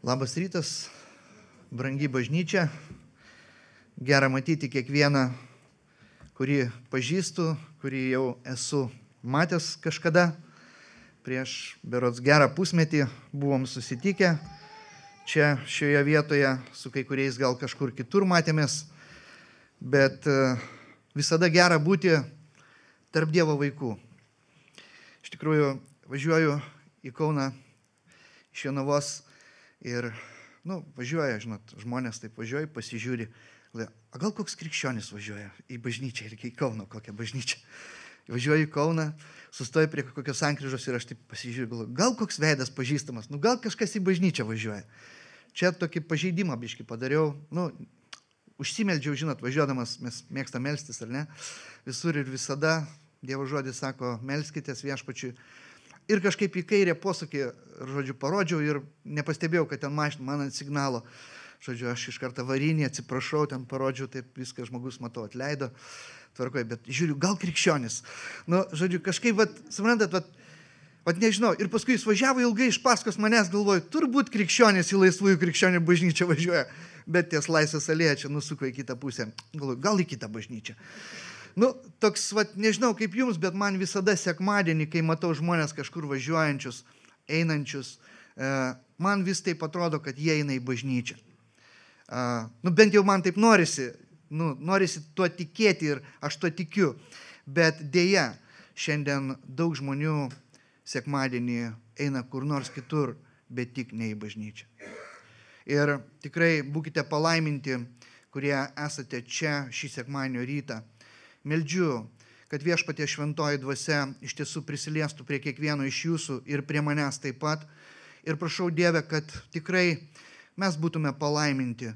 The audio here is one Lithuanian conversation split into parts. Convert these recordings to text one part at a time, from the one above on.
Labas rytas, brangi bažnyčia. Gera matyti kiekvieną, kurį pažįstu, kurį jau esu matęs kažkada. Prieš berods gerą pusmetį buvom susitikę čia šioje vietoje, su kai kuriais gal kažkur kitur matėmės, bet visada gera būti tarp Dievo vaikų. Iš tikrųjų, važiuoju į Kauną iš Jonavos ir, važiuoja, žmonės taip važiuoja, pasižiūri, a gal koks krikščionis važiuoja į bažnyčią ir į Kauno kokią bažnyčią. Važiuoju į Kauną, sustoju prie kokios sankryžos ir aš taip pasižiūriu, galvoju, gal koks veidas pažįstamas, gal kažkas į bažnyčią važiuoja. Čia tokį pažeidimą biškį padariau, užsimeldžiau, važiuodamas, mes mėgstam melstis, ar ne, visur ir visada Dievo žodis sako, melskitės viešpačiui. Ir kažkaip į kairę posūkį, parodžiau ir nepastebėjau, kad ten mašina man ant signalo. Aš iš karto varinį, atsiprašau, ten parodžiau, taip viską žmogus, matau, atleido, tvarkoju, bet žiūriu, gal krikščionis. Kažkaip, suprantat, nežinau. Ir paskui jis važiavo ilgai iš paskos manęs, galvoju, turbūt krikščionis į laisvųjų krikščionių bažnyčią važiuoja, bet ties Laisvės alėja čia nusuko į kitą pusę. Galvoju, gal į kitą bažnyčią. Toks, nežinau kaip jums, bet man visada sekmadienį, kai matau žmonės kažkur važiuojančius, einančius, man vis taip atrodo, kad jie eina į bažnyčią. Bent jau man taip norisi tuo tikėti ir aš tuo tikiu, bet dėja, šiandien daug žmonių sekmadienį eina kur nors kitur, bet tik ne į bažnyčią. Ir tikrai būkite palaiminti, kurie esate čia šį sekmadienio rytą. Meldžiu, kad Viešpatie šventoji dvasia iš tiesų prisiliestų prie kiekvieno iš jūsų ir prie manęs taip pat. Ir prašau Dieve, kad tikrai mes būtume palaiminti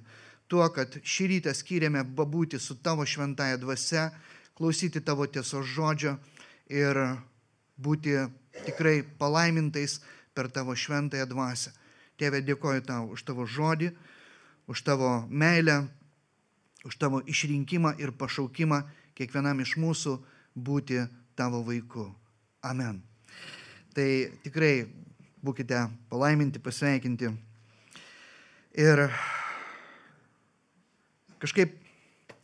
tuo, kad šį rytą skyrėme pabūti su tavo šventąja dvasia, klausyti tavo tiesos žodžio ir būti tikrai palaimintais per tavo šventąją dvasią. Tėve, dėkoju tau už tavo žodį, už tavo meilę, už tavo išrinkimą ir pašaukimą kiekvienam iš mūsų būti tavo vaiku. Amen. Tai tikrai būkite palaiminti, pasveikinti. Ir kažkaip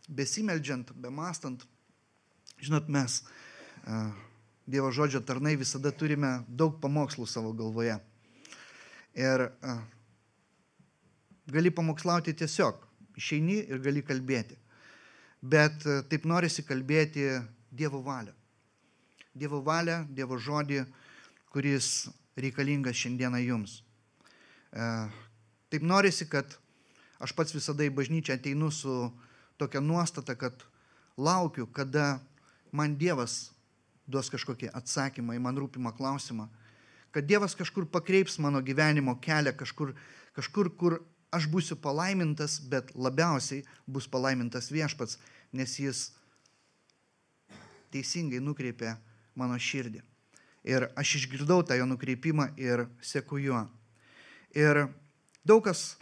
besimeldžiant, bemastant, mes, Dievo žodžio tarnai, visada turime daug pamokslų savo galvoje. Ir gali pamokslauti tiesiog, išeini ir gali kalbėti. Bet taip norisi kalbėti Dievo valią. Dievo valią, Dievo žodį, kuris reikalingas šiandieną jums. Taip norisi, kad aš pats visada į bažnyčią ateinu su tokia nuostata, kad laukiu, kada man Dievas duos kažkokį atsakymą į man rūpimą klausimą. Kad Dievas kažkur pakreips mano gyvenimo kelią, kažkur, kur aš būsiu palaimintas, bet labiausiai bus palaimintas Viešpats, nes jis teisingai nukreipė mano širdį. Ir aš išgirdau tą jo nukreipimą ir seku juo. Ir daug kas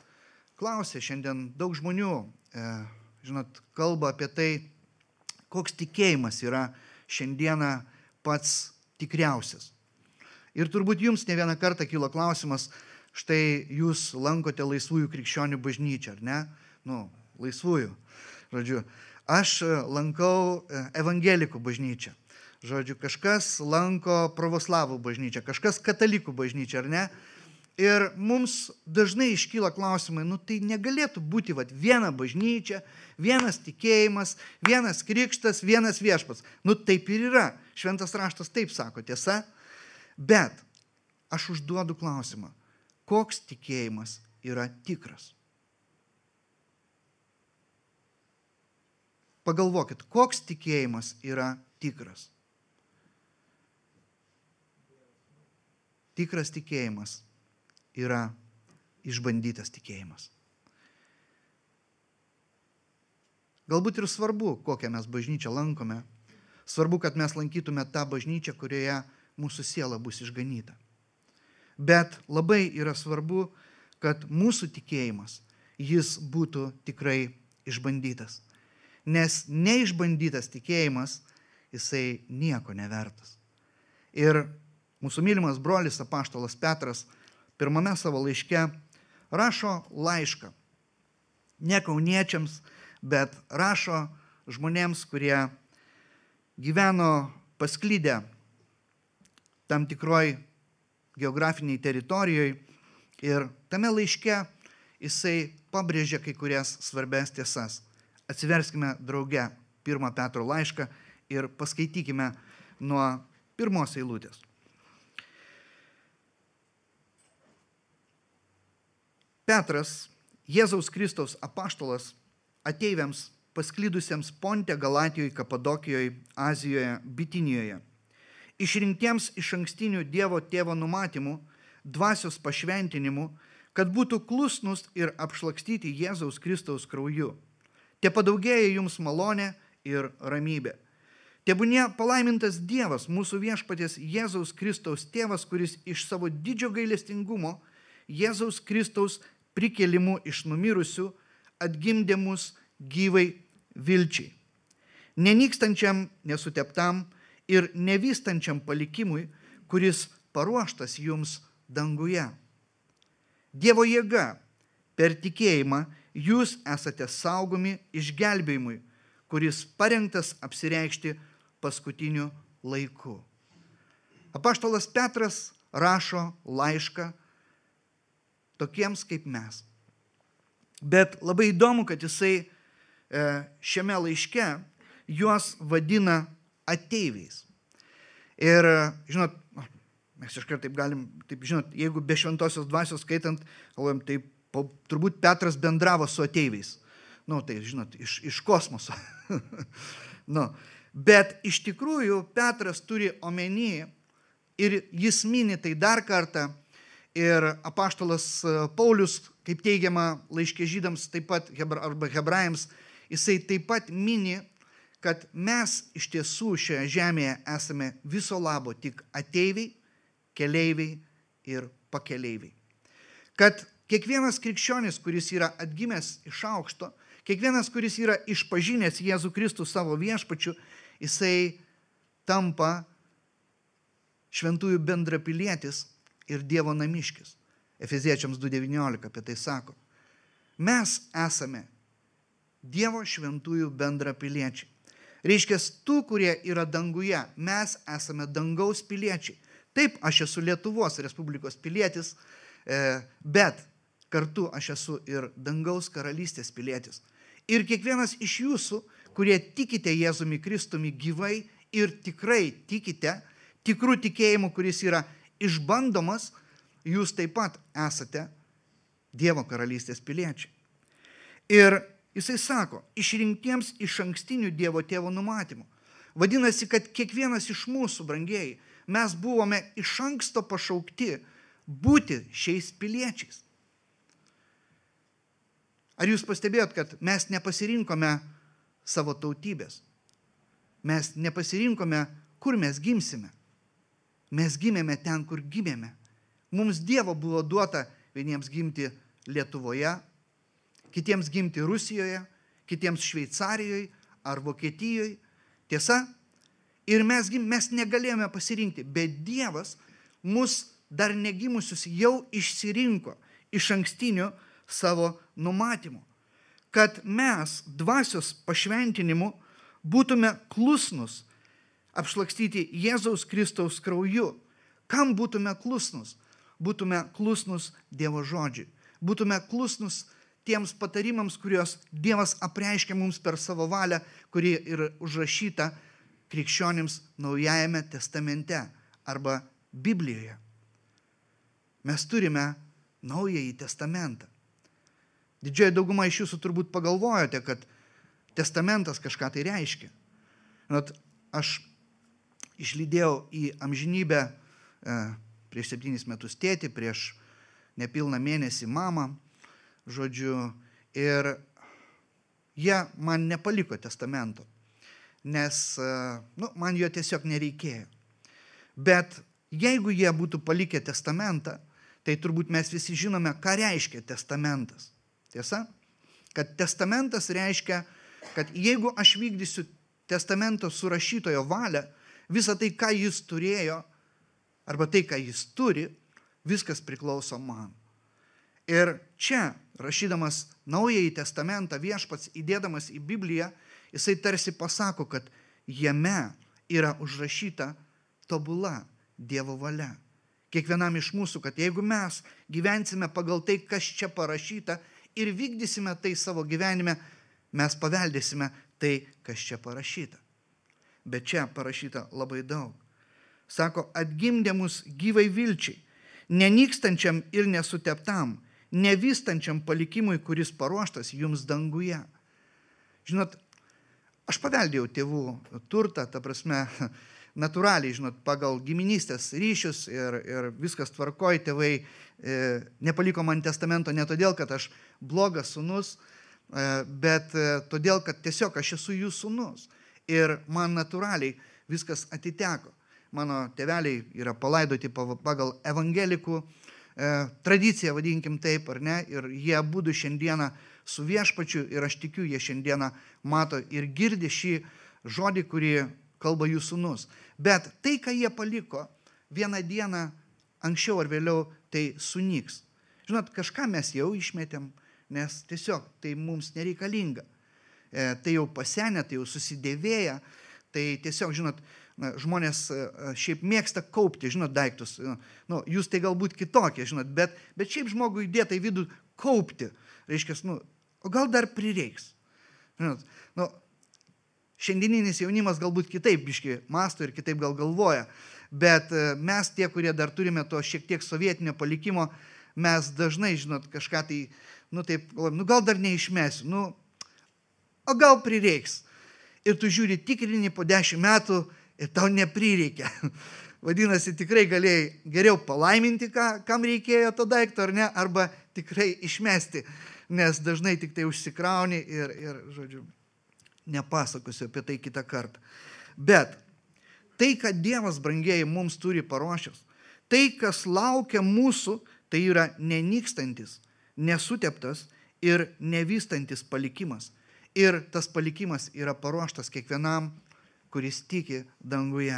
klausė šiandien, daug žmonių, kalba apie tai, koks tikėjimas yra šiandieną pats tikriausias. Ir turbūt jums ne vieną kartą kilo klausimas, štai jūs lankote laisvųjų krikščionių bažnyčią, ar ne? Laisvųjų. Aš lankau evangelikų bažnyčią. Kažkas lanko pravoslavų bažnyčią, kažkas katalikų bažnyčią, ar ne? Ir mums dažnai iškyla klausimai, tai negalėtų būti viena bažnyčia, vienas tikėjimas, vienas krikštas, vienas viešpats. Taip ir yra. Šventas raštas taip sako, tiesa? Bet aš užduodu klausimą, koks tikėjimas yra tikras? Pagalvokit, koks tikėjimas yra tikras? Tikras tikėjimas yra išbandytas tikėjimas. Galbūt ir svarbu, kokią mes bažnyčią lankome. Svarbu, kad mes lankytume tą bažnyčią, kurioje mūsų siela bus išganyta. Bet labai yra svarbu, kad mūsų tikėjimas, jis būtų tikrai išbandytas. Nes neišbandytas tikėjimas, jisai nieko nevertas. Ir mūsų mylimas brolis apaštalas Petras pirmame savo laiške rašo laišką. Ne kauniečiams, bet rašo žmonėms, kurie gyveno pasklydę tam tikroj geografiniai teritorijoje ir tame laiške jisai pabrėžia kai kurias svarbias tiesas. Atsiverskime drauge 1 Petro laišką ir paskaitykime nuo 1 eilutės. Petras, Jėzaus Kristaus apaštalas, ateiviams pasklydusiems Ponte, Galatijoje, Kapadokijoje, Azijoje, Bitinijoje, išrinktiems iš ankstinių Dievo tėvo numatymų, dvasios pašventinimu, kad būtų klusnus ir apšlakstyti Jėzaus Kristaus krauju. Te padaugėja jums malonė ir ramybė. Tebūnie palaimintas Dievas, mūsų viešpaties Jėzaus Kristaus tėvas, kuris iš savo didžio gailestingumo Jėzaus Kristaus prikėlimu iš numirusių atgimdė mus gyvai vilčiai, nenykstančiam, nesuteptam ir nevystančiam palikimui, kuris paruoštas jums danguje. Dievo jėga, per tikėjimą jūs esate saugomi išgelbėjimui, kuris parengtas apsireikšti paskutiniu laiku. Apaštalas Petras rašo laišką tokiems kaip mes. Bet labai įdomu, kad jisai šiame laiške juos vadina ateiviais. Ir, žinot, mes iškart taip galim, taip, žinot, jeigu be šventosios dvasios skaitant, galvojam, tai turbūt Petras bendravo su ateiviais. Tai, žinot, iš kosmoso. Bet iš tikrųjų Petras turi omeny ir jis mini tai dar kartą. Ir apaštalas Paulius, kaip teigiama laiške žydams, taip pat arba hebrajams, jisai taip pat mini, kad mes iš tiesų šioje žemėje esame viso labo tik ateiviai, keleiviai ir pakeleiviai. Kad kiekvienas krikščionis, kuris yra atgimęs iš aukšto, kiekvienas, kuris yra išpažinęs Jėzų Kristų savo viešpačiu, jisai tampa šventųjų bendrapilietis ir Dievo namiškis. Efeziečiams 2:19 apie tai sako. Mes esame Dievo šventųjų bendrapiliečiai. Reiškia, tų, kurie yra danguje, mes esame dangaus piliečiai. Taip, aš esu Lietuvos Respublikos pilietis, bet kartu aš esu ir dangaus karalystės pilietis. Ir kiekvienas iš jūsų, kurie tikite Jėzumi Kristumi gyvai ir tikrai tikite, tikrų tikėjimų, kuris yra išbandomas, jūs taip pat esate Dievo karalystės piliečiai. Ir jisai sako, išrinktiems iš ankstinių Dievo tėvo numatymų. Vadinasi, kad kiekvienas iš mūsų, brangieji, mes buvome iš anksto pašaukti būti šiais piliečiais. Ar jūs pastebėjot, kad mes nepasirinkome savo tautybės? Mes nepasirinkome, kur mes gimsime. Mes gimėme ten, kur gimėme. Mums Dievo buvo duota vieniems gimti Lietuvoje, kitiems gimti Rusijoje, kitiems Šveicarijoje ar Vokietijoje. Tiesa? Ir mes negalėjome pasirinkti, bet Dievas mus dar negimusius jau išsirinko iš ankstinių savo numatymų, kad mes dvasios pašventinimu būtume klusnus, apšlakstyti Jėzaus Kristaus krauju. Kam būtume klusnus? Būtume klusnus Dievo žodžiui. Būtume klusnus tiems patarimams, kuriuos Dievas apreiškia mums per savo valią, kuri yra užrašyta krikščionims Naujajame testamente arba Biblijoje. Mes turime Naująjį testamentą. Didžioji dauguma iš jūsų turbūt pagalvojote, kad testamentas kažką tai reiškia. Aš išlydėjau į amžinybę prieš 7 metus tėtį, prieš nepilną mėnesį mamą, žodžiu, ir jie man nepaliko testamento, nes man jo tiesiog nereikėjo. Bet jeigu jie būtų palikę testamentą, tai turbūt mes visi žinome, ką reiškia testamentas. Tiesa? Kad testamentas reiškia, kad jeigu aš vykdysiu testamento surašytojo valią, visą tai, ką jis turėjo, arba tai, ką jis turi, viskas priklauso man. Ir čia, rašydamas Naująjį testamentą, viešpats įdėdamas į Bibliją, jisai tarsi pasako, kad jame yra užrašyta tobula Dievo valia. Kiekvienam iš mūsų, kad jeigu mes gyvensime pagal tai, kas čia parašyta ir vykdysime tai savo gyvenime, mes paveldėsime tai, kas čia parašyta. Bet čia parašyta labai daug. Sako, atgimdė mus gyvai vilčiai, nenykstančiam ir nesuteptam, nevystančiam palikimui, kuris paruoštas jums danguje. Žinot, aš paveldėjau tėvų turtą, ta prasme, natūraliai, žinot, pagal giminystės ryšius ir viskas tvarkoj, tėvai nepaliko man testamento ne todėl, kad aš blogas sūnus, bet todėl, kad tiesiog aš esu jų sūnus. Ir man natūraliai viskas atiteko. Mano tėveliai yra palaidoti pagal evangelikų tradiciją, vadinkim taip, ar ne, ir jie abudu šiandieną su viešpačiu ir aš tikiu, jie šiandieną mato ir girdi šį žodį, kurį kalba jų sūnus. Bet tai, ką jie paliko, vieną dieną anksčiau ar vėliau tai sunyks. Žinot, kažką mes jau išmetėm, nes tiesiog tai mums nereikalinga. Tai jau pasenę, tai jau susidėvėję, tai tiesiog, žinot, žmonės šiaip mėgsta kaupti, žinot, daiktus. Nu, jūs tai galbūt kitokie, žinot, bet šiaip žmogui įdėta į vidų kaupti. Reiškia, o gal dar prireiks. Žinot, šiandieninis jaunimas galbūt kitaip biški mąsto ir kitaip gal galvoja, bet mes tie, kurie dar turime to šiek tiek sovietinio palikimo, mes dažnai, žinot, kažką tai, taip, gal dar neišmesiu, o gal prireiks. Ir tu žiūri, tikrini po 10 metų ir tau neprireikia. Vadinasi, tikrai galėjai geriau palaiminti, kam reikėjo to daikto, ar ne, arba tikrai išmesti, nes dažnai tik tai užsikrauni ir žodžiu, nepasakosiu apie tai kitą kartą. Bet tai, kad Dievas, brangieji, mums turi paruošęs, tai, kas laukia mūsų, tai yra nenykstantis, nesuteptas ir nevystantis palikimas. Ir tas palikimas yra paruoštas kiekvienam, kuris tiki danguje.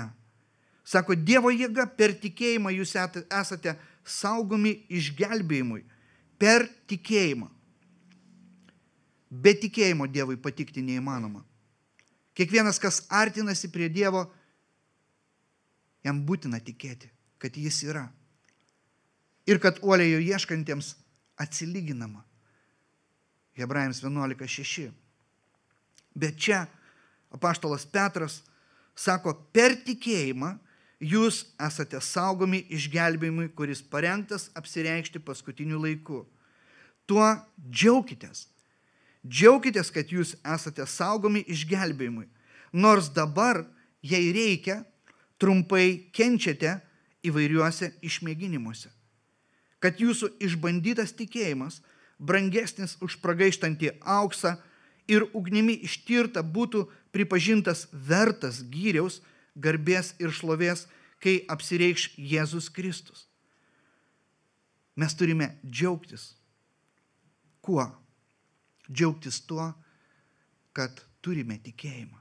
Sako, Dievo jėga per tikėjimą jūs esate saugomi išgelbėjimui. Per tikėjimą. Be tikėjimo Dievui patikti neįmanoma. Kiekvienas, kas artinasi prie Dievo, jam būtina tikėti, kad jis yra. Ir kad uoliai jo ieškantiems atsilyginama. Hebrajams 11:6. Bet čia apaštalas Petras sako, per tikėjimą jūs esate saugomi išgelbėjimui, kuris parengtas apsireikšti paskutiniu laiku. Tuo džiaukitės. Džiaukitės, kad jūs esate saugomi išgelbėjimui. Nors dabar, jei reikia, trumpai kenčiate įvairiuose išmėginimuose. Kad jūsų išbandytas tikėjimas, brangesnis už pragaištantį auksą, ir ugnimi ištirta būtų pripažintas vertas gyriaus, garbės ir šlovės, kai apsireikš Jėzus Kristus. Mes turime džiaugtis. Kuo? Džiaugtis tuo, kad turime tikėjimą.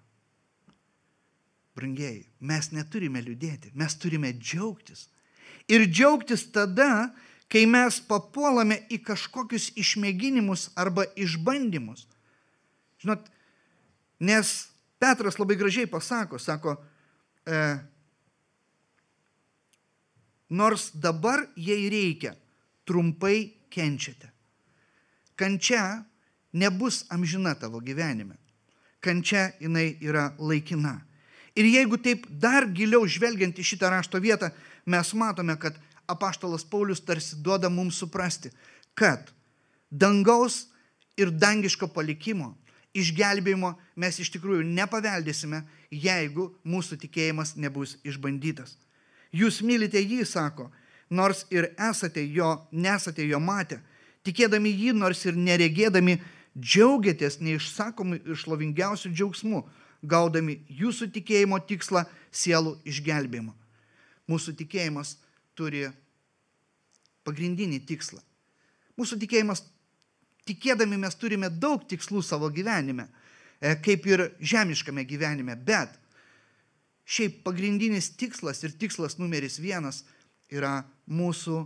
Brangieji, mes neturime liūdėti, mes turime džiaugtis. Ir džiaugtis tada, kai mes papuolame į kažkokius išmėginimus arba išbandymus. Žinot, nes Petras labai gražiai pasako, nors dabar jei reikia, trumpai kenčiate. Kančia nebus amžina tavo gyvenime. Kančia jinai yra laikina. Ir jeigu taip dar giliau žvelgiant į šitą rašto vietą, mes matome, kad apaštalas Paulius tarsi duoda mums suprasti, kad dangaus ir dangiško palikimo, išgelbėjimo mes iš tikrųjų nepaveldėsime, jeigu mūsų tikėjimas nebus išbandytas. Jūs mylite jį, sako, nors ir nesate jo matę, tikėdami jį, nors ir neregėdami, džiaugiatės neišsakomu ir šlovingiausiu džiaugsmu, gaudami jūsų tikėjimo tikslą sielų išgelbėjimą. Mūsų tikėjimas turi pagrindinį tikslą. Mūsų tikėjimas, tikėdami mes turime daug tikslų savo gyvenime, kaip ir žemiškame gyvenime, bet šiaip pagrindinis tikslas ir tikslas numeris 1 yra mūsų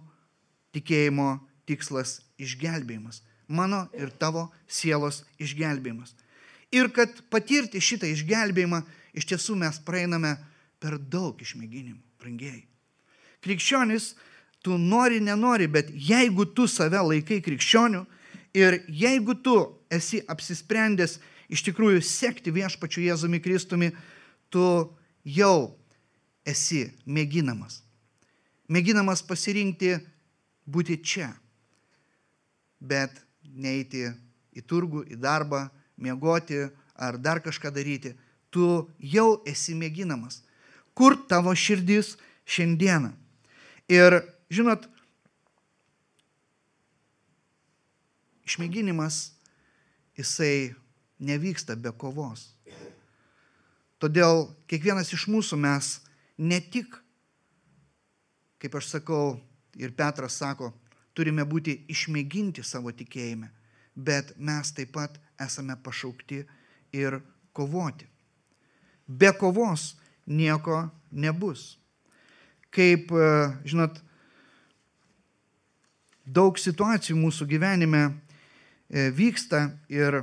tikėjimo tikslas išgelbėjimas. Mano ir tavo sielos išgelbėjimas. Ir kad patirti šitą išgelbėjimą, iš tiesų mes praeiname per daug išmėginimų, brangieji. Krikščionis, tu nori, nenori, bet jeigu tu save laikai krikščioniu ir jeigu tu esi apsisprendęs iš tikrųjų sekti viešpačiu Jėzumi Kristumi, tu jau esi mėginamas. Mėginamas pasirinkti būti čia, bet neiti į turgų, į darbą, miegoti ar dar kažką daryti. Tu jau esi mėginamas. Kur tavo širdis šiandieną? Ir, žinot, išmėginimas, jisai nevyksta be kovos. Todėl kiekvienas iš mūsų mes ne tik, kaip aš sakau, ir Petras sako, turime būti išmėginti savo tikėjime, bet mes taip pat esame pašaukti ir kovoti. Be kovos nieko nebus. Kaip, žinot, daug situacijų mūsų gyvenime vyksta ir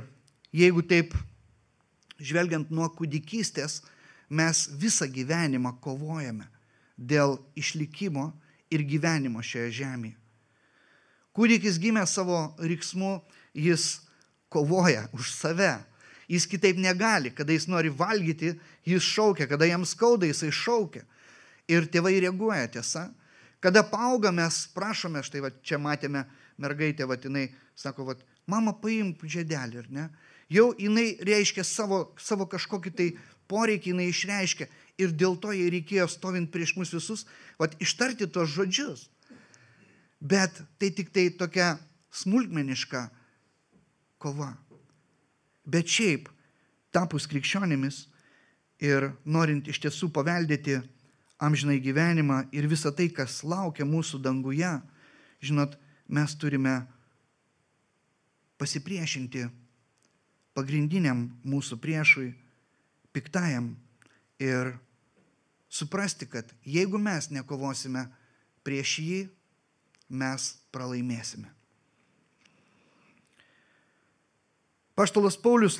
jeigu taip žvelgiant nuo kūdikystės, mes visą gyvenimą kovojame dėl išlikimo ir gyvenimo šioje žemėje. Kūdikis gimė savo riksmu, jis kovoja už save. Jis kitaip negali, kada jis nori valgyti, jis šaukia, kada jam skauda, jisai šaukia. Ir tėvai reaguoja, tiesa. Kada paauga, mes prašome, štai va, čia matėme mergaitę, va, jinai sako, va, mama paimk žiedelį, ar ne? Jau jinai reiškia savo kažkokį tai poreikį, jinai išreiškia. Ir dėl to jai reikėjo stovint prieš mus visus, va, ištarti tos žodžius. Bet tai tik tai tokia smulkmeniška kova. Bet šiaip, tapus krikščionimis ir norint iš tiesų paveldėti amžinai gyvenimą ir visą tai, kas laukia mūsų danguje, žinot, mes turime pasipriešinti pagrindiniam mūsų priešui, piktajam, ir suprasti, kad jeigu mes nekovosime prieš jį, mes pralaimėsime. Apaštalas Paulius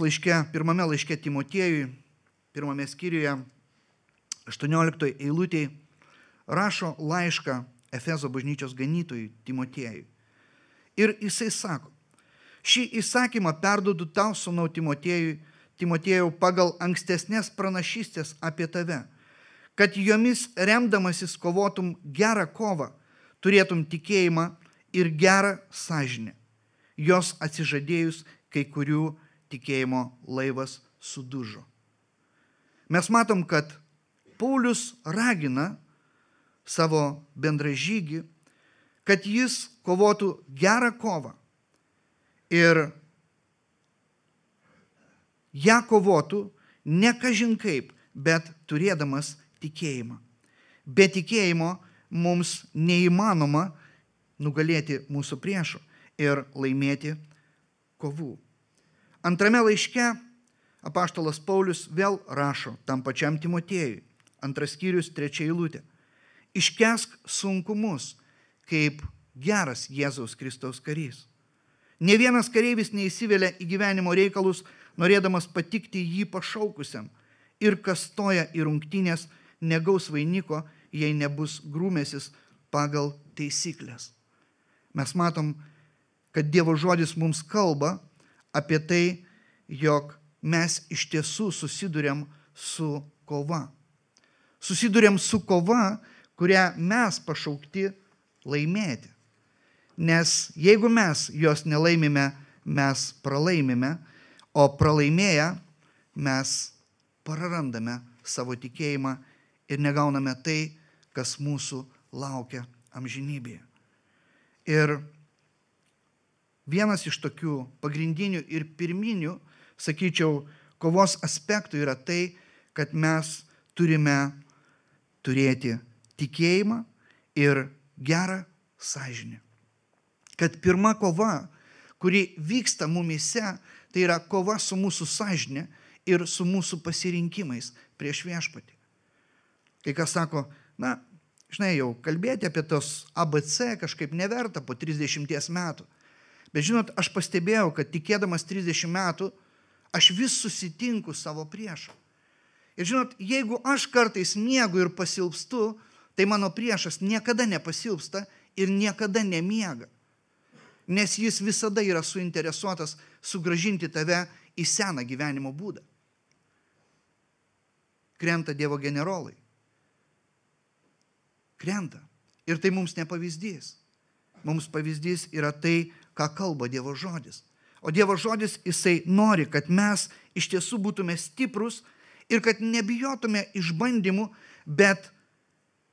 pirmame laiške Timotiejui, pirmame skyriuje, 18 eilutėje, rašo laišką Efezo bažnyčios ganytojui Timotiejui. Ir jisai sako, šį įsakymą perduodu tau, sūnau Timotiejau, pagal ankstesnės pranašystės apie tave, kad jomis remdamasis kovotum gerą kovą, turėtum tikėjimą ir gerą sąžinę, jos atsižadėjus, kai kurių tikėjimo laivas sudužo. Mes matom, kad Paulius ragina savo bendražygį, kad jis kovotų gerą kovą ir ją kovotų ne kažin kaip, bet turėdamas tikėjimą. Be tikėjimo mums neįmanoma nugalėti mūsų priešų ir laimėti kovų. Antrame laiške apaštalas Paulius vėl rašo tam pačiam Timotiejui, 2 skyrius 3 eilutė. Iškęsk sunkumus, kaip geras Jėzaus Kristaus karys. Ne vienas kareivis neįsivelia į gyvenimo reikalus, norėdamas patikti jį pašaukusiam, ir kas stoja į rungtynės, negaus vainiko, jei nebus grūmėsis pagal taisyklės. Mes matom, kad Dievo žodis mums kalba apie tai, jog mes iš tiesų susiduriam su kova. Susiduriam su kova, kurią mes pašaukti laimėti. Nes jeigu mes jos nelaimime, mes pralaimime, o pralaimėję mes prarandame savo tikėjimą ir negauname tai, kas mūsų laukia amžinybėje. Ir vienas iš tokių pagrindinių ir pirminių, sakyčiau, kovos aspektų yra tai, kad mes turime turėti tikėjimą ir gerą sąžinę. Kad pirma kova, kuri vyksta mumyse, tai yra kova su mūsų sąžinė ir su mūsų pasirinkimais prieš viešpatį. Kai kas sako, na, žinai, jau kalbėti apie tos ABC kažkaip neverta po 30 metų. Bet žinot, aš pastebėjau, kad tikėdamas 30 metų, aš vis susitinku savo priešą. Ir žinot, jeigu aš kartais miegu ir pasilpstu, tai mano priešas niekada nepasilpsta ir niekada nemiega. Nes jis visada yra suinteresuotas sugrąžinti tave į seną gyvenimo būdą. Krenta Dievo generolai. Krenta. Ir tai mums ne pavyzdys. Mums pavyzdys yra tai, ką kalba Dievo žodis. O Dievo žodis, jisai nori, kad mes iš tiesų būtume stiprus ir kad nebijotume išbandymų, bet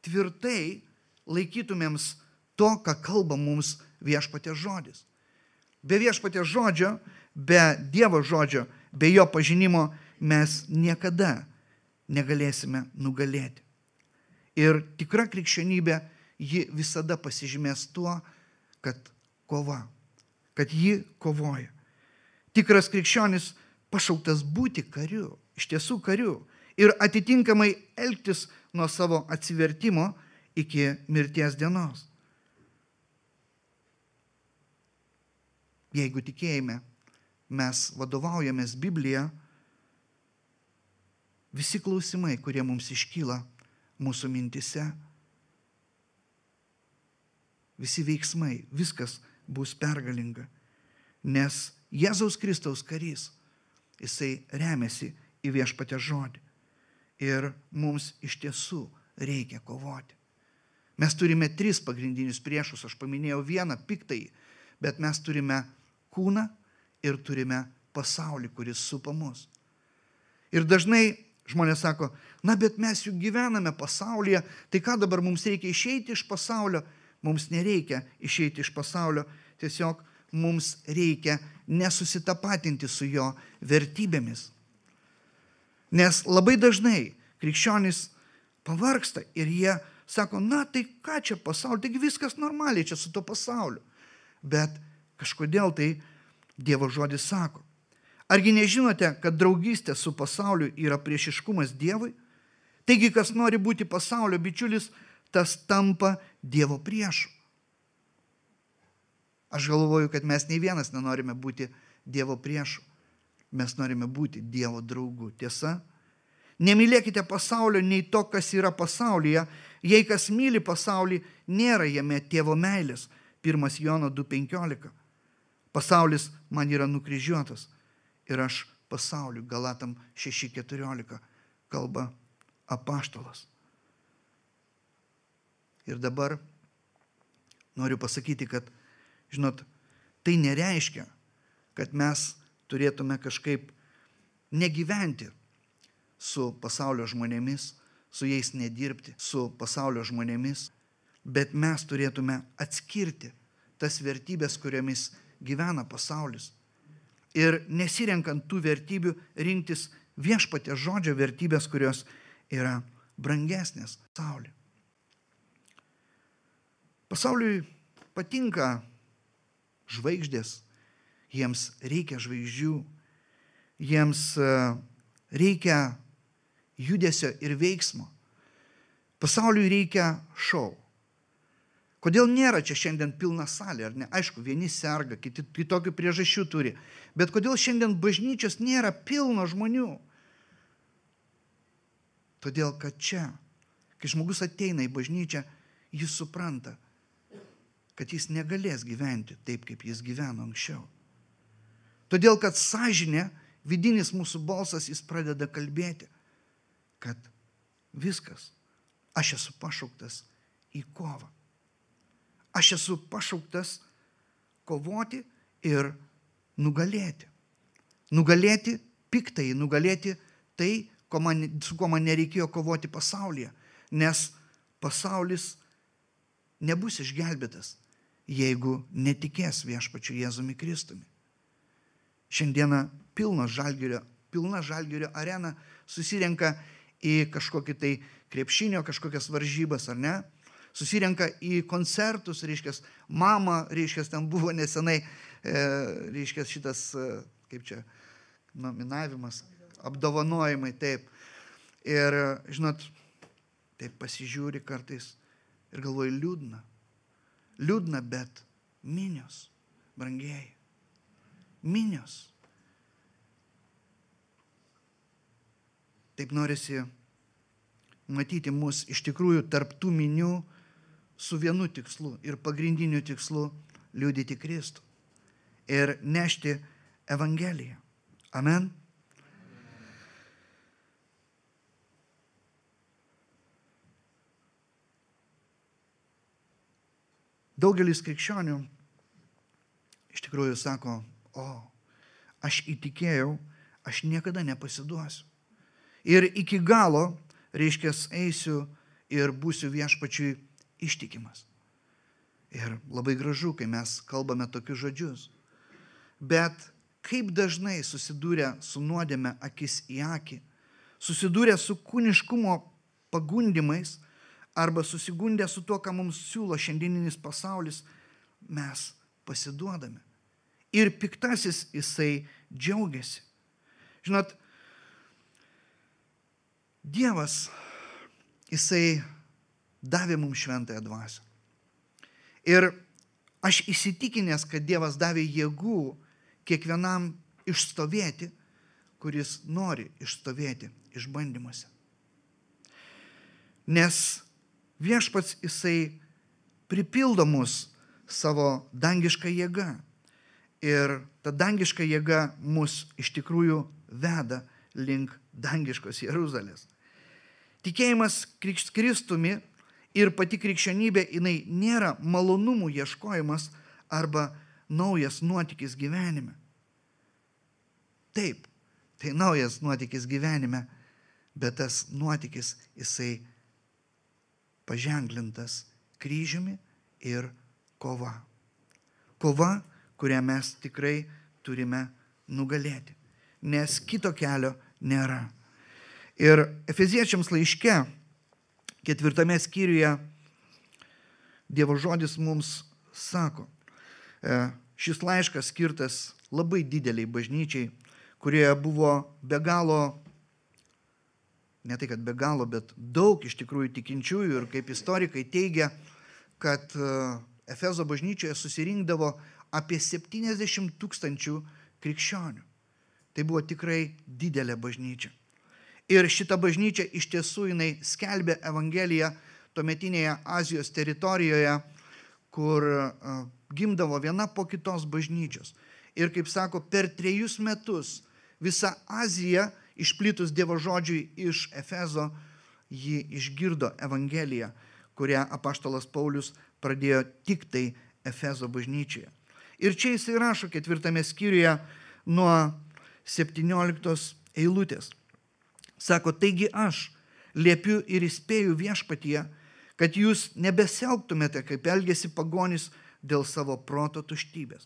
tvirtai laikytumėms to, ką kalba mums viešpaties žodis. Be viešpaties žodžio, be Dievo žodžio, be jo pažinimo mes niekada negalėsime nugalėti. Ir tikra krikščionybė, ji visada pasižymės tuo, kad kova, kad ji kovoja. Tikras krikščionis pašauktas būti kariu, iš tiesų kariu, ir atitinkamai elgtis nuo savo atsivertimo iki mirties dienos. Jeigu tikėjime mes vadovaujamės Bibliją, visi klausimai, kurie mums iškyla mūsų mintise, visi veiksmai, viskas bus pergalinga, nes Jėzaus Kristaus karys, jisai remiasi į viešpatės žodį. Ir mums iš tiesų reikia kovoti. Mes turime 3 pagrindinius priešus, aš paminėjau vieną, piktąjį, bet mes turime kūną ir turime pasaulį, kuris supa mus. Ir dažnai žmonės sako, na, bet mes juk gyvename pasaulyje, tai ką dabar mums reikia išeiti iš pasaulio? Mums nereikia išeiti iš pasaulio, tiesiog mums reikia nesusitapatinti su jo vertybėmis. Nes labai dažnai krikščionys pavargsta ir jie sako, na, tai ką čia pasaulio, taigi viskas normaliai čia su to pasauliu. Bet kažkodėl tai Dievo žodis sako, argi nežinote, kad draugystė su pasauliu yra priešiškumas Dievui? Taigi, kas nori būti pasaulio bičiulis, tas tampa Dievo priešu. Aš galvoju, kad mes nei vienas nenorime būti Dievo priešu. Mes norime būti Dievo draugu. Tiesa? Nemylėkite pasaulio nei to, kas yra pasaulyje. Jei kas myli pasaulį, nėra jame tėvo meilės. 1 Jono 2,15. Pasaulis man yra nukryžiuotas ir aš pasauliu. Galatam 6,14 kalba apaštalas. Ir dabar noriu pasakyti, kad, žinot, tai nereiškia, kad mes turėtume kažkaip negyventi su pasaulio žmonėmis, su jais nedirbti, su pasaulio žmonėmis, bet mes turėtume atskirti tas vertybės, kuriomis gyvena pasaulis. Ir nesirenkant tų vertybių rinktis viešpaties žodžio vertybės, kurios yra brangesnės pasauliui. Pasauliui patinka žvaigždės, jiems reikia žvaigždžių, jiems reikia judesio ir veiksmo. Pasauliui reikia šou. Kodėl nėra čia šiandien pilna salė, ar ne? Aišku, vieni serga, kiti kitokių priežasčių turi. Bet kodėl šiandien bažnyčios nėra pilno žmonių? Todėl, kad čia, kai žmogus ateina į bažnyčią, jis supranta, kad jis negalės gyventi taip, kaip jis gyveno anksčiau. Todėl, kad sąžinė, vidinis mūsų balsas, jis pradeda kalbėti, kad viskas, aš esu pašauktas į kovą. Aš esu pašauktas kovoti ir nugalėti. Nugalėti piktąjį, nugalėti tai, su kuo man nereikėjo kovoti pasaulyje. Nes pasaulis nebus išgelbėtas, jeigu netikės viešpačiu Jėzumi Kristumi. Šiandieną pilna Žalgirio arena susirenka į kažkokį tai krepšinio, kažkokias varžybas, ar ne? Susirenka į koncertus, reiškias, mama, reiškias, ten buvo nesenai, reiškias, šitas, kaip čia, nominavimas, apdovanojimai, taip. Ir, žinot, taip pasižiūri kartais, Ir galvoju, liūdna. Liūdna, bet minios, brangieji. Minios. Taip norisi matyti mus iš tikrųjų tarp tų minių su vienu tikslu ir pagrindiniu tikslu liudyti Kristų ir nešti Evangeliją. Amen. Daugelis krikščionių iš tikrųjų sako, aš įtikėjau, aš niekada nepasiduosiu. Ir iki galo, reiškia, eisiu ir būsiu viešpačiui ištikimas. Ir labai gražu, kai mes kalbame tokius žodžius. Bet kaip dažnai susidūrę su nuodėme akis į akį, susidūrę su kūniškumo pagundimais arba susigundę su tuo, ką mums siūlo šiandieninis pasaulis, mes pasiduodame. Ir piktasis jisai džiaugiasi. Žinot, Dievas, jisai davė mums šventąją dvasią. Ir aš įsitikinęs, kad Dievas davė jėgų kiekvienam išstovėti, kuris nori išstovėti išbandymuose. Nes viešpats jisai pripildo mus savo dangišką jėgą. Ir ta dangiška jėga mus iš tikrųjų veda link dangiškos Jeruzalės. Tikėjimas Kristumi ir pati krikščionybė, jinai nėra malonumų ieškojimas arba naujas nuotykis gyvenime. Taip, tai naujas nuotykis gyvenime, bet tas nuotykis jisai paženklintas kryžiumi ir kova. Kova, kurią mes tikrai turime nugalėti, nes kito kelio nėra. Ir Efeziečiams laiške, 4 skyriuje, Dievo žodis mums sako, šis laiškas skirtas labai dideliai bažnyčiai, kurioje buvo be galo, ne tai kad be galo, bet daug iš tikrųjų tikinčiųjų, ir kaip istorikai teigia, kad Efezo bažnyčioje susirinkdavo apie 70 000 krikščionių. Tai buvo tikrai didelė bažnyčia. Ir šita bažnyčia iš tiesų jinai skelbė Evangeliją tuometinėje Azijos teritorijoje, kur gimdavo viena po kitos bažnyčios. Ir kaip sako, per 3 metus visa Azija, išplitus Dievo žodžiui iš Efezo, ji išgirdo Evangeliją, kurią apaštalas Paulius pradėjo tik tai Efezo bažnyčioje. Ir čia jisai rašo 4 skyriuje nuo 17 eilutės. Sako, taigi aš liepiu ir įspėju viešpatyje, kad jūs nebesielgtumėte, kaip elgėsi pagonys dėl savo proto tuštybės.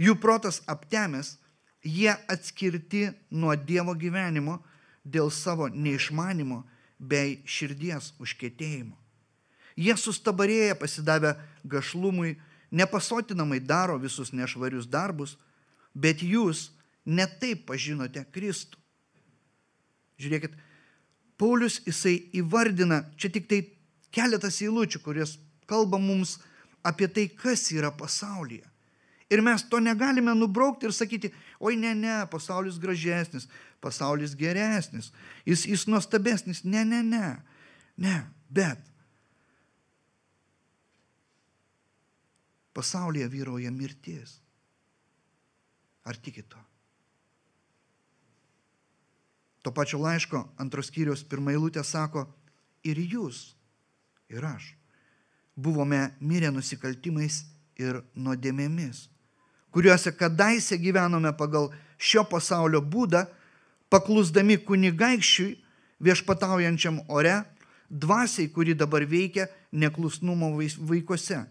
Jų protas aptemęs, jie atskirti nuo Dievo gyvenimo dėl savo neišmanimo bei širdies užkietėjimo. Jie sustabarėję pasidavę gašlumui, nepasotinamai daro visus nešvarius darbus, bet jūs ne taip pažinote Kristų. Žiūrėkit, Paulius jisai įvardina, čia tik tai keletas eilučių, kurios kalba mums apie tai, kas yra pasaulyje. Ir mes to negalime nubraukti ir sakyti, oi ne, pasaulis gražesnis, pasaulis geresnis, jis nuostabesnis, ne, bet pasaulyje vyrauja mirtis. Ar tikit to? To pačio laiško 2 skyriaus 1 eilutė sako, ir jūs, ir aš, buvome mirę nusikaltimais ir nuodėmėmis, kuriuose kadaise gyvenome pagal šio pasaulio būdą, paklusdami kunigaikščiui viešpataujančiam ore, dvasiai, kuri dabar veikia neklusnumo vaikuose.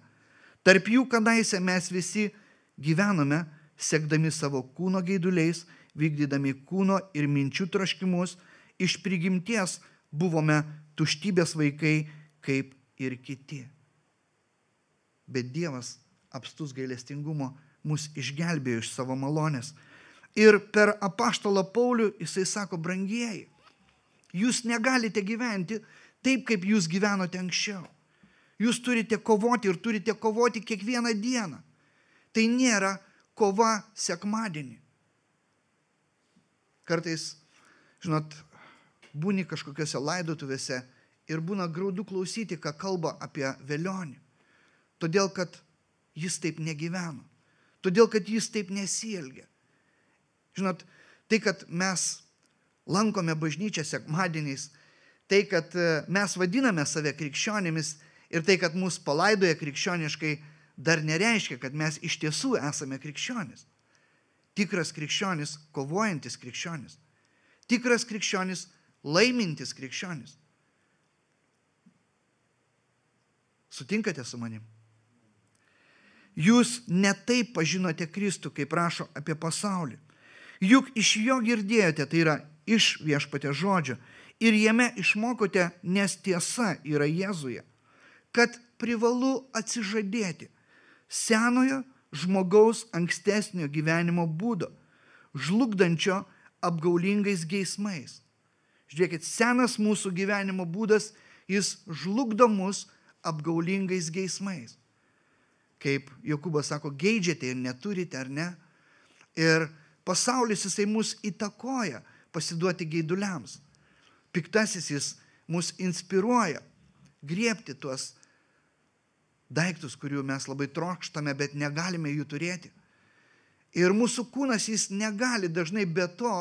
Tarp jų kadaise mes visi gyvenome, sekdami savo kūno geiduliais, vykdydami kūno ir minčių troškimus, iš prigimties buvome tuštybės vaikai kaip ir kiti. Bet Dievas apstus gailestingumo mus išgelbėjo iš savo malonės. Ir per apaštalą Paulių jisai sako, brangieji, jūs negalite gyventi taip, kaip jūs gyvenote anksčiau. Jūs turite kovoti ir turite kovoti kiekvieną dieną. Tai nėra kova sekmadienį. Kartais, žinot, būni kažkokiose laidotuvėse ir būna graudu klausyti, ką kalba apie velionį. Todėl, kad jis taip negyveno. Todėl, kad jis taip nesielgia. Žinot, tai, kad mes lankome bažnyčią sekmadieniais, tai, kad mes vadiname save krikščionimis ir tai, kad mus palaidoja krikščioniškai, dar nereiškia, kad mes iš tiesų esame krikščionis. Tikras krikščionis, kovojantis krikščionis. Tikras krikščionis, laimintis krikščionis. Sutinkate su manim? Jūs ne taip pažinote Kristų, kaip rašo apie pasaulį. Juk iš jo girdėjote, tai yra iš viešpaties žodžio, ir jame išmokote, nes tiesa yra Jėzuje, kad privalu atsižadėti senojo žmogaus ankstesnio gyvenimo būdo, žlugdančio apgaulingais geismais. Žiūrėkit, senas mūsų gyvenimo būdas, jis žlugdo mus apgaulingais geismais. Kaip Jokūbas sako, geidžiate ir neturite, ar ne? Ir pasaulis jisai mus įtakoja pasiduoti geiduliams. Piktasis jis mus inspiruoja griebti tuos daiktus, kurių mes labai trokštame, bet negalime jų turėti. Ir mūsų kūnas jis negali dažnai be to,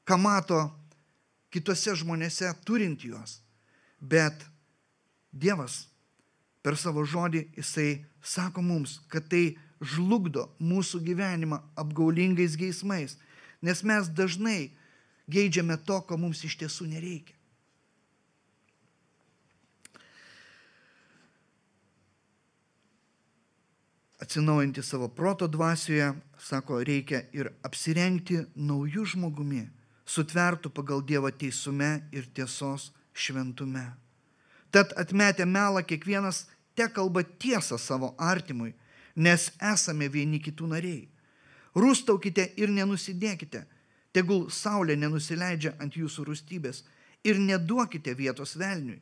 ką mato kitose žmonėse turint juos. Bet Dievas per savo žodį jisai sako mums, kad tai žlugdo mūsų gyvenimą apgaulingais geismais, nes mes dažnai geidžiame to, ko mums iš tiesų nereikia. Atsinaujinti savo proto dvasioje, sako, reikia ir apsirengti naujų žmogumi, sutvertų pagal Dievo teisume ir tiesos šventume. Tad atmetę melą kiekvienas te kalba tiesą savo artimui, nes esame vieni kitų nariai. Rūstaukite ir nenusidėkite, tegul saulė nenusileidžia ant jūsų rūstybės ir neduokite vietos velniui.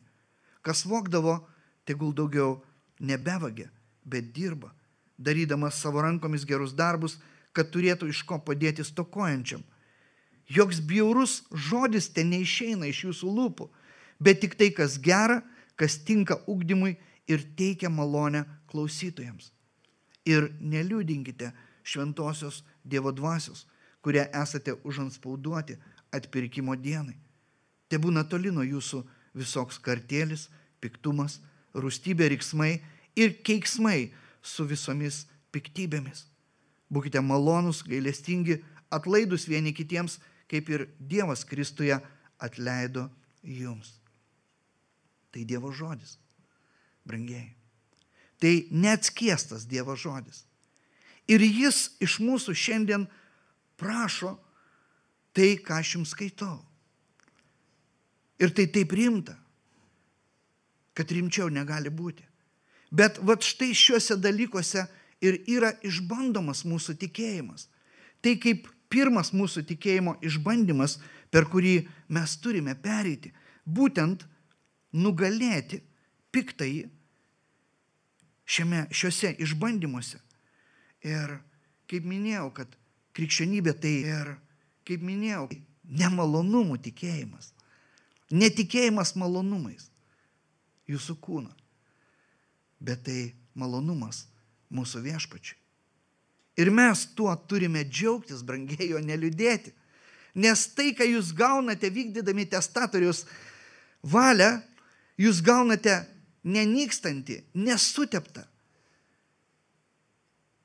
Kas vogdavo, tegul daugiau nebevagia, bet dirba, darydamas savo rankomis gerus darbus, kad turėtų iš ko padėti stokojančiam. Joks bjaurus žodis ten neišeina iš jūsų lūpų, bet tik tai, kas gera, kas tinka ugdymui ir teikia malonę klausytojams. Ir neliūdinkite šventosios Dievo dvasios, kurie esate užanspauduoti atpirkimo dienai. Te būna toli nuo jūsų visoks kartėlis, piktumas, rūstybė, riksmai ir keiksmai su visomis piktybėmis. Būkite malonūs, gailestingi, atlaidūs vieni kitiems, kaip ir Dievas Kristuje atleido jums. Tai Dievo žodis, brangieji. Tai neatskiestas Dievo žodis. Ir jis iš mūsų šiandien prašo tai, ką aš jums skaitau. Ir tai taip rimta, kad rimčiau negali būti. Bet vat štai šiuose dalykuose ir yra išbandomas mūsų tikėjimas. Tai kaip pirmas mūsų tikėjimo išbandymas, per kurį mes turime pereiti, būtent nugalėti piktąjį šiuose išbandymuose. Ir kaip minėjau, kad krikščionybė tai ir, kaip minėjau, nemalonumų tikėjimas. Netikėjimas malonumais jūsų kūno, bet tai malonumas mūsų viešpačiui. Ir mes tuo turime džiaugtis, brangieji, o neliūdėti. Nes tai, ką jūs gaunate vykdydami testatoriaus valią, jūs gaunate nenykstantį, nesuteptą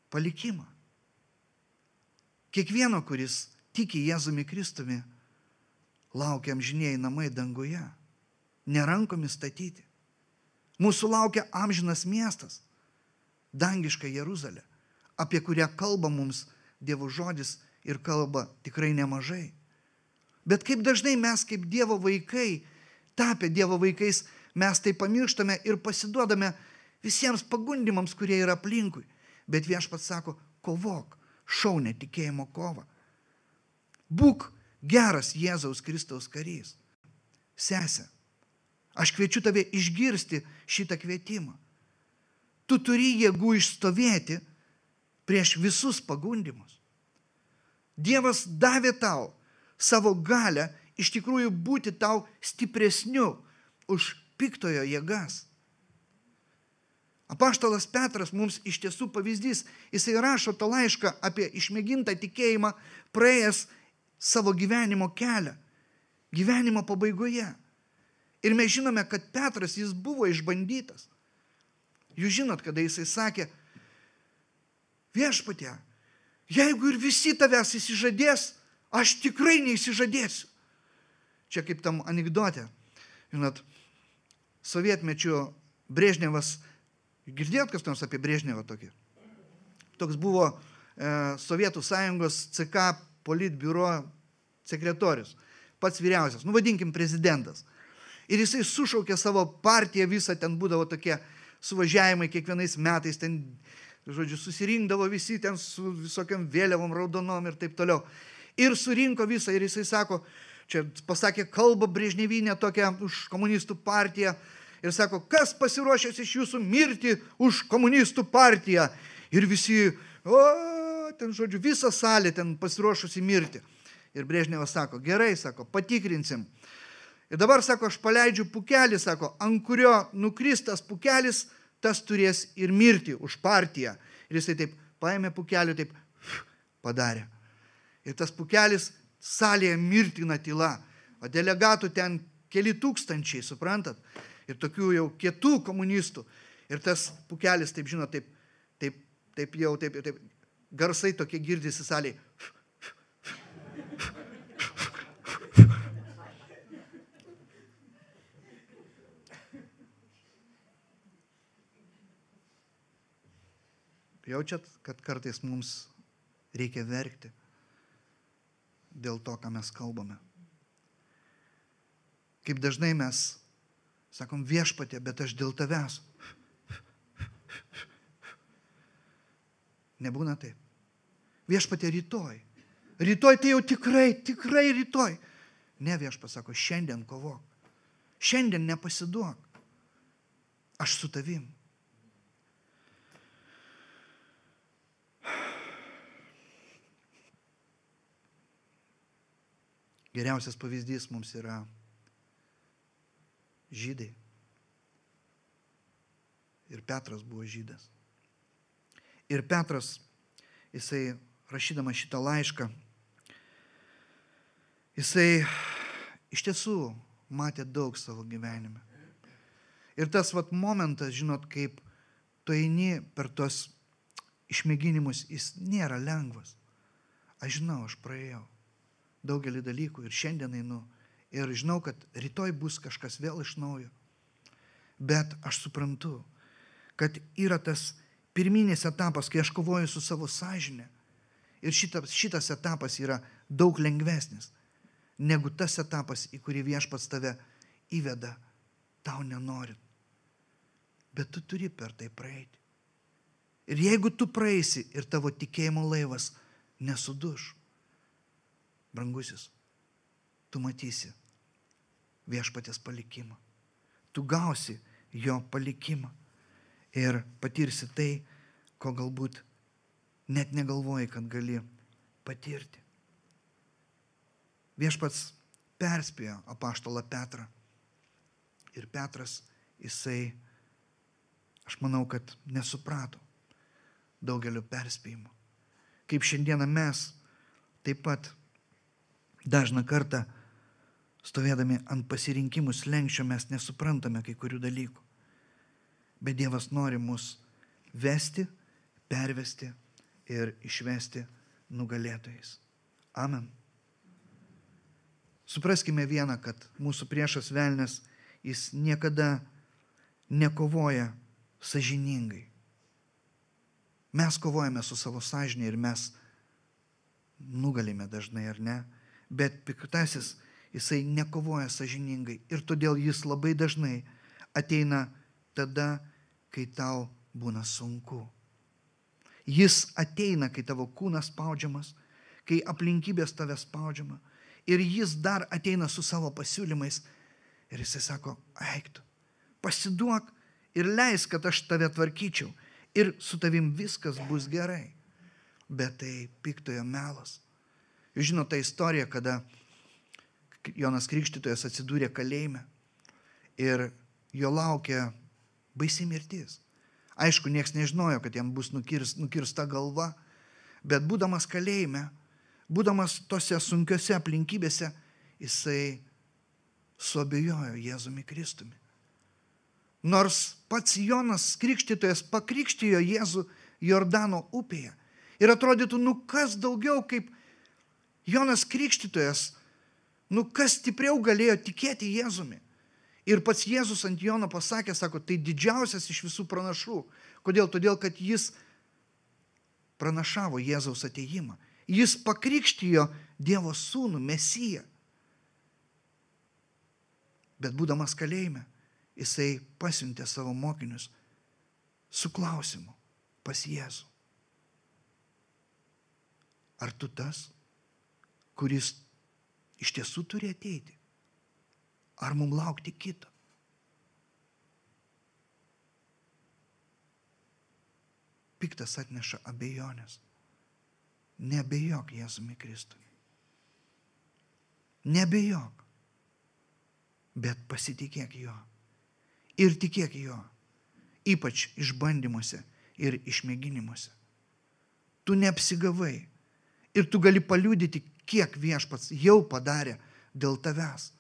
palikimą. Kiekvieno, kuris tiki Jėzumi Kristumi, laukia amžinieji namai danguje, nerankomis statyti. Mūsų laukia amžinas miestas, dangiška Jeruzalė, apie kurią kalba mums Dievo žodis ir kalba tikrai nemažai. Bet kaip dažnai mes kaip Dievo vaikai, tapę Dievo vaikais, mes tai pamirštame ir pasiduodame visiems pagundimams, kurie yra aplinkui. Bet viešpats sako, kovok, šaunę tikėjimo kovą. Būk geras Jėzaus Kristaus karys. Sese, Aš kviečiu tave išgirsti šitą kvietimą. Tu turi jėgų išstovėti prieš visus pagundimus. Dievas davė tau savo galę iš tikrųjų būti tau stipresniu už piktojo jėgas. Apaštalas Petras mums iš tiesų pavyzdys. Jisai rašo tą laišką apie išmėgintą tikėjimą, praėjęs savo gyvenimo kelią, gyvenimo pabaigoje. Ir mes žinome, kad Petras, jis buvo išbandytas. Jūs žinot, kada jisai sakė, viešpatie, jeigu ir visi tavęs įsižadės, aš tikrai neįsižadėsiu. Čia kaip tam anekdote. Žinot, sovietmečiu Brežnevas, girdėjot kas nors apie Brežnevą tokį? Toks buvo Sovietų sąjungos CK politbiuro sekretorius, pats vyriausias, vadinkim prezidentas. Ir jisai sušaukė savo partiją visą, ten būdavo tokie suvažiavimai kiekvienais metais, ten, žodžiu, susirinkdavo visi ten su visokiam vėliavom raudonom ir taip toliau. Ir surinko visą ir jisai sako, čia pasakė kalbą Brežnevinę tokią už komunistų partiją ir sako, kas pasiruošęs iš jūsų mirti už komunistų partiją? Ir visi, ten, žodžiu, visa salė ten pasiruošusi mirti. Ir Brežnevas sako, gerai, sako, patikrinsim. Ir dabar, sako, aš paleidžiu pukelį, sako, ant kurio nukris tas pukelis, tas turės ir mirti už partiją. Ir jisai taip paėmė pukelį, taip padarė. Ir tas pukelis salėje mirtina tyla. O delegatų ten keli tūkstančiai, suprantat? Ir tokių jau kietų komunistų. Ir tas pukelis, taip žinot, taip garsai tokie girdisi salėje. Jaučiat, kad kartais mums reikia verkti dėl to, ką mes kalbame. Kaip dažnai mes sakom, viešpatie, bet aš dėl tavęs. Nebūna taip. Viešpatie, rytoj. Rytoj tai jau tikrai rytoj. Ne, viešpats sako, šiandien kovok. Šiandien nepasiduok. Aš su tavim. Geriausias pavyzdys mums yra žydai. Ir Petras buvo žydas. Ir Petras, jisai rašydama šitą laišką, jisai iš tiesų matė daug savo gyvenime. Ir tas momentas, žinot, kaip tu eini per tos išmėginimus, jis nėra lengvas. Aš žinau, aš praėjau daugelį dalykų ir šiandien einu. Ir žinau, kad rytoj bus kažkas vėl iš naujo. Bet aš suprantu, kad yra tas pirminis etapas, kai aš kovoju su savo sąžine. Ir šitas etapas yra daug lengvesnis, negu tas etapas, į kurį viešpats tave įveda, tau nenorint. Bet tu turi per tai praeiti. Ir jeigu tu praeisi ir tavo tikėjimo laivas nesuduš, brangusis, tu matysi viešpaties palikimą. Tu gausi jo palikimą ir patirsi tai, ko galbūt net negalvoji, kad gali patirti. Viešpats perspėjo apaštalą Petrą. Ir Petras, jisai, aš manau, kad nesuprato daugelio perspėjimų. Kaip šiandieną mes taip pat dažną kartą stovėdami ant pasirinkimų slenksčio mes nesuprantame kai kurių dalykų. Bet Dievas nori mus vesti, pervesti ir išvesti nugalėtojais. Amen. Supraskime vieną, kad mūsų priešas velnias, jis niekada nekovoja sąžiningai. Mes kovojame su savo sąžinė ir mes nugalime dažnai, ar ne? Bet piktasis, jisai nekovoja sąžiningai ir todėl jis labai dažnai ateina tada, kai tau būna sunku. Jis ateina, kai tavo kūnas spaudžiamas, kai aplinkybės tave spaudžiama ir jis dar ateina su savo pasiūlymais. Ir jisai sako, eik tu, pasiduok ir leisk, kad aš tave tvarkyčiau. Ir su tavim viskas bus gerai. Bet tai piktojo melas. Jūs žinote tą istoriją, kada Jonas Krikštytojas atsidūrė kalėjime ir jo laukia baisi mirtis. Aišku, nieks nežinojo, kad jam bus nukirsta galva, bet būdamas kalėjime, būdamas tose sunkiose aplinkybėse, jisai suabejojo Jėzumi Kristumi. Nors pats Jonas Krikštytojas pakrikštijo Jėzų Jordano upėje. Ir atrodytų, kas daugiau kaip Jonas Krikštytojas, kas stipriau galėjo tikėti Jėzumi. Ir pats Jėzus ant Jono pasakė, sako, tai didžiausias iš visų pranašų. Kodėl? Todėl, kad jis pranašavo Jėzaus atėjimą. Jis pakrikštijo Dievo sūnų, Mesiją. Bet būdamas kalėjime, jisai pasiuntė savo mokinius su klausimu pas Jėzų. Ar tu tas, kuris iš tiesų turi ateiti? Ar mums laukti kito? Piktas atneša abejonės. Neabejok Jėzumi Kristumi. Neabejok, bet pasitikėk jo. Ir tikėk jo, ypač išbandymuose ir išmėginimuose. Tu neapsigavai ir tu gali paliudyti, kiek Viešpats jau padarė dėl tavęs.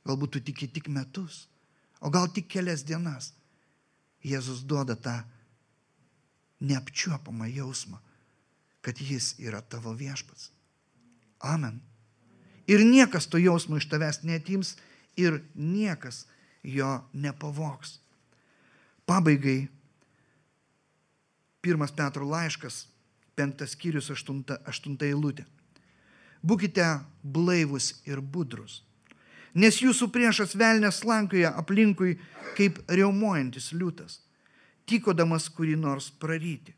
Galbūt tu tiki tik metus, o gal tik kelias dienas. Jėzus duoda tą neapčiuopamą jausmą, kad jis yra tavo Viešpats. Amen. Ir niekas to jausmo iš tavęs neatims ir niekas jo nepavogs. Pabaigai 1 Petro laiškas, 5 skyrius, 8 eilutė. Būkite blaivus ir budrus, nes jūsų priešas velnias slankioja aplinkui kaip riaumojantis liūtas, tykodamas kurį nors praryti.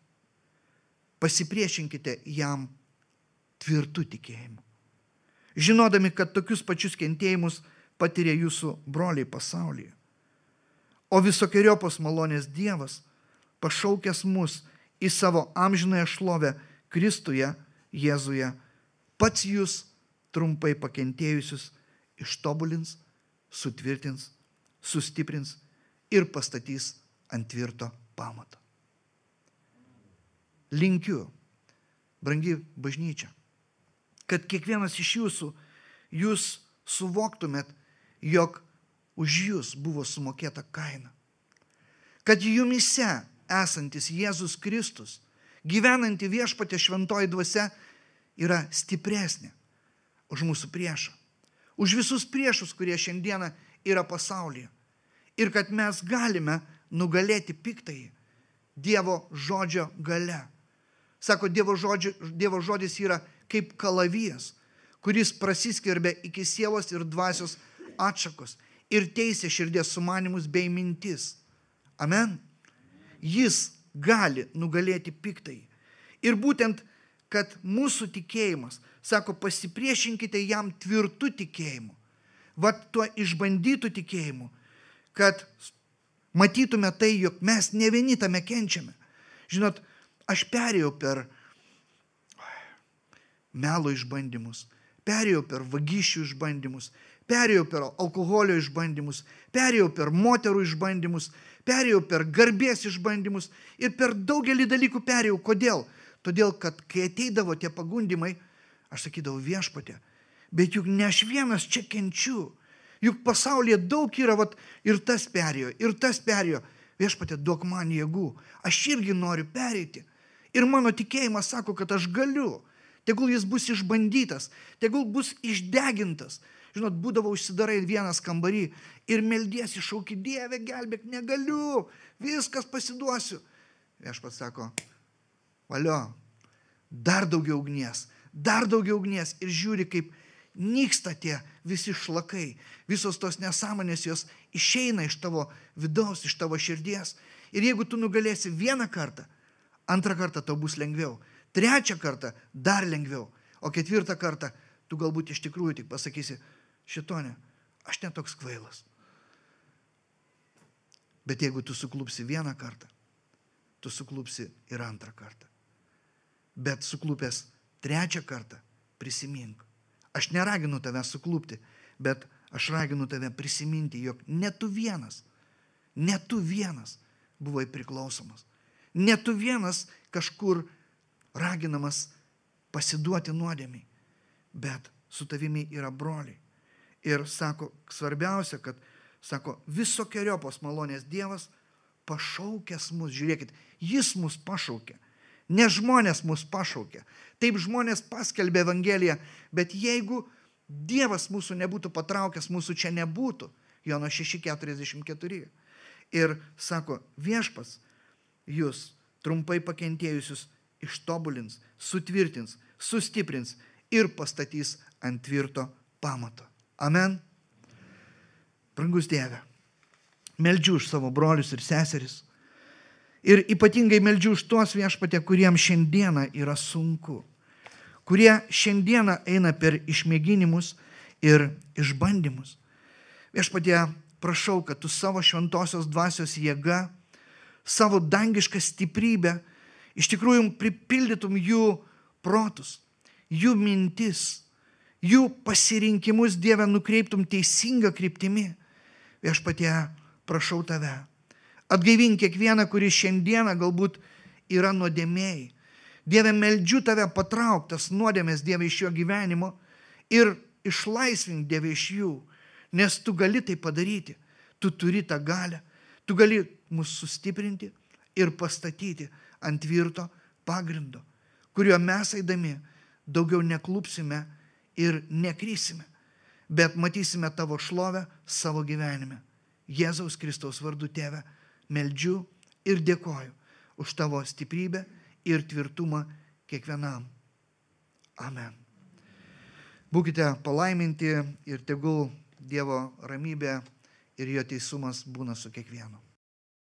Pasipriešinkite jam tvirtu tikėjimu, žinodami, kad tokius pačius kentėjimus patiria jūsų broliai pasaulyje. O visokiojopos malonės Dievas, pašaukęs mus į savo amžinąją šlovę Kristuje, Jėzuje, pats jūs trumpai pakentėjusius ištobulins, sutvirtins, sustiprins ir pastatys ant tvirto pamato. Linkiu, brangi bažnyčia, kad kiekvienas iš jūsų, jūs suvoktumėt, jog už jūs buvo sumokėta kaina. Kad jumyse esantis Jėzus Kristus, gyvenanti Viešpatie šventoji dvasia, yra stipresnė už mūsų priešą. Už visus priešus, kurie šiandieną yra pasaulyje. Ir kad mes galime nugalėti piktąjį Dievo žodžio gale. Sako, Dievo žodis yra kaip kalavijas, kuris prasiskverbia iki sielos ir dvasios atšakos ir teisia širdies sumanimus bei mintis. Amen. Jis gali nugalėti piktąjį. Ir būtent, kad mūsų tikėjimas, sako, pasipriešinkite jam tvirtu tikėjimu, vat tuo išbandytų tikėjimu, kad matytume tai, jog mes ne vieni tame kenčiame. Žinot, aš perėjau per melo išbandymus, perėjau per vagysčių išbandymus, perėjau per alkoholio išbandymus, perėjau per moterų išbandymus, perėjau per garbės išbandymus ir per daugelį dalykų perėjau. Kodėl? Todėl, kad kai ateidavo tie pagundimai, aš sakydavau, Viešpatie, bet juk ne aš vienas čia kenčiu. Juk pasaulyje daug yra, ir tas perėjo. Viešpatie, duok man jėgų. Aš irgi noriu pereiti. Ir mano tikėjimas sako, kad aš galiu. Tegul jis bus išbandytas, tegul bus išdegintas. Žinot, būdavo užsidarai vienas kambarį ir meldiesi, šauki, Dieve, gelbėk, negaliu, viskas pasiduosiu. Viešpats sako, valio, dar daugiau ugnies ir žiūri, kaip nyksta tie visi šlakai, visos tos nesąmonės jos išeina iš tavo vidaus, iš tavo širdies. Ir jeigu tu nugalėsi vieną kartą, antrą kartą tau bus lengviau, trečią kartą dar lengviau, o ketvirtą kartą tu galbūt iš tikrųjų tik pasakysi, šitone, aš netoks kvailas, Bet jeigu tu suklupsi vieną kartą, tu suklupsi ir antrą kartą. Bet suklupęs trečią kartą prisimink. Aš neraginu tave suklupti, bet aš raginu tave prisiminti, jog ne tu vienas buvai priklausomas. Ne tu vienas kažkur raginamas pasiduoti nuodėmiai, bet su tavimi yra broliai. Ir sako, svarbiausia, kad, sako, visokeriopos malonės Dievas pašaukęs mus, žiūrėkit, jis mus pašaukė, ne žmonės mus pašaukė. Taip žmonės paskelbė Evangeliją, bet jeigu Dievas mūsų nebūtų patraukęs, mūsų čia nebūtų. Jono 6:44. Ir sako, viešpats jūs trumpai pakentėjusius ištobulins, sutvirtins, sustiprins ir pastatys ant tvirto pamato. Amen. Brangus Dieve, meldžiu už savo brolius ir seseris. Ir ypatingai meldžiu už tuos, Viešpatie, kuriems šiandieną yra sunku. Kurie šiandieną eina per išmėginimus ir išbandymus. Viešpatie, prašau, kad tu savo šventosios dvasios jėga, savo dangišką stiprybę, iš tikrųjų pripildytum jų protus, jų mintis, jų pasirinkimus, Dieve, nukreiptum teisingą kryptimi. Viešpatie, prašau tave, atgaivink kiekvieną, kuris šiandieną galbūt yra nuodėmėjai. Dieve, meldžiu tave patrauktas nuodėmės, Dieve, iš jo gyvenimo ir išlaisvink, Dieve, iš jų, nes tu gali tai padaryti. Tu turi tą galią, tu gali mus sustiprinti ir pastatyti ant tvirto pagrindo, kuriuo mes eidami daugiau neklupsime ir nekrysime, bet matysime tavo šlovę savo gyvenime. Jėzaus Kristaus vardu, Tėve, meldžiu ir dėkoju už tavo stiprybę ir tvirtumą kiekvienam. Amen. Būkite palaiminti ir tegul Dievo ramybė ir jo teisumas būna su kiekvienu.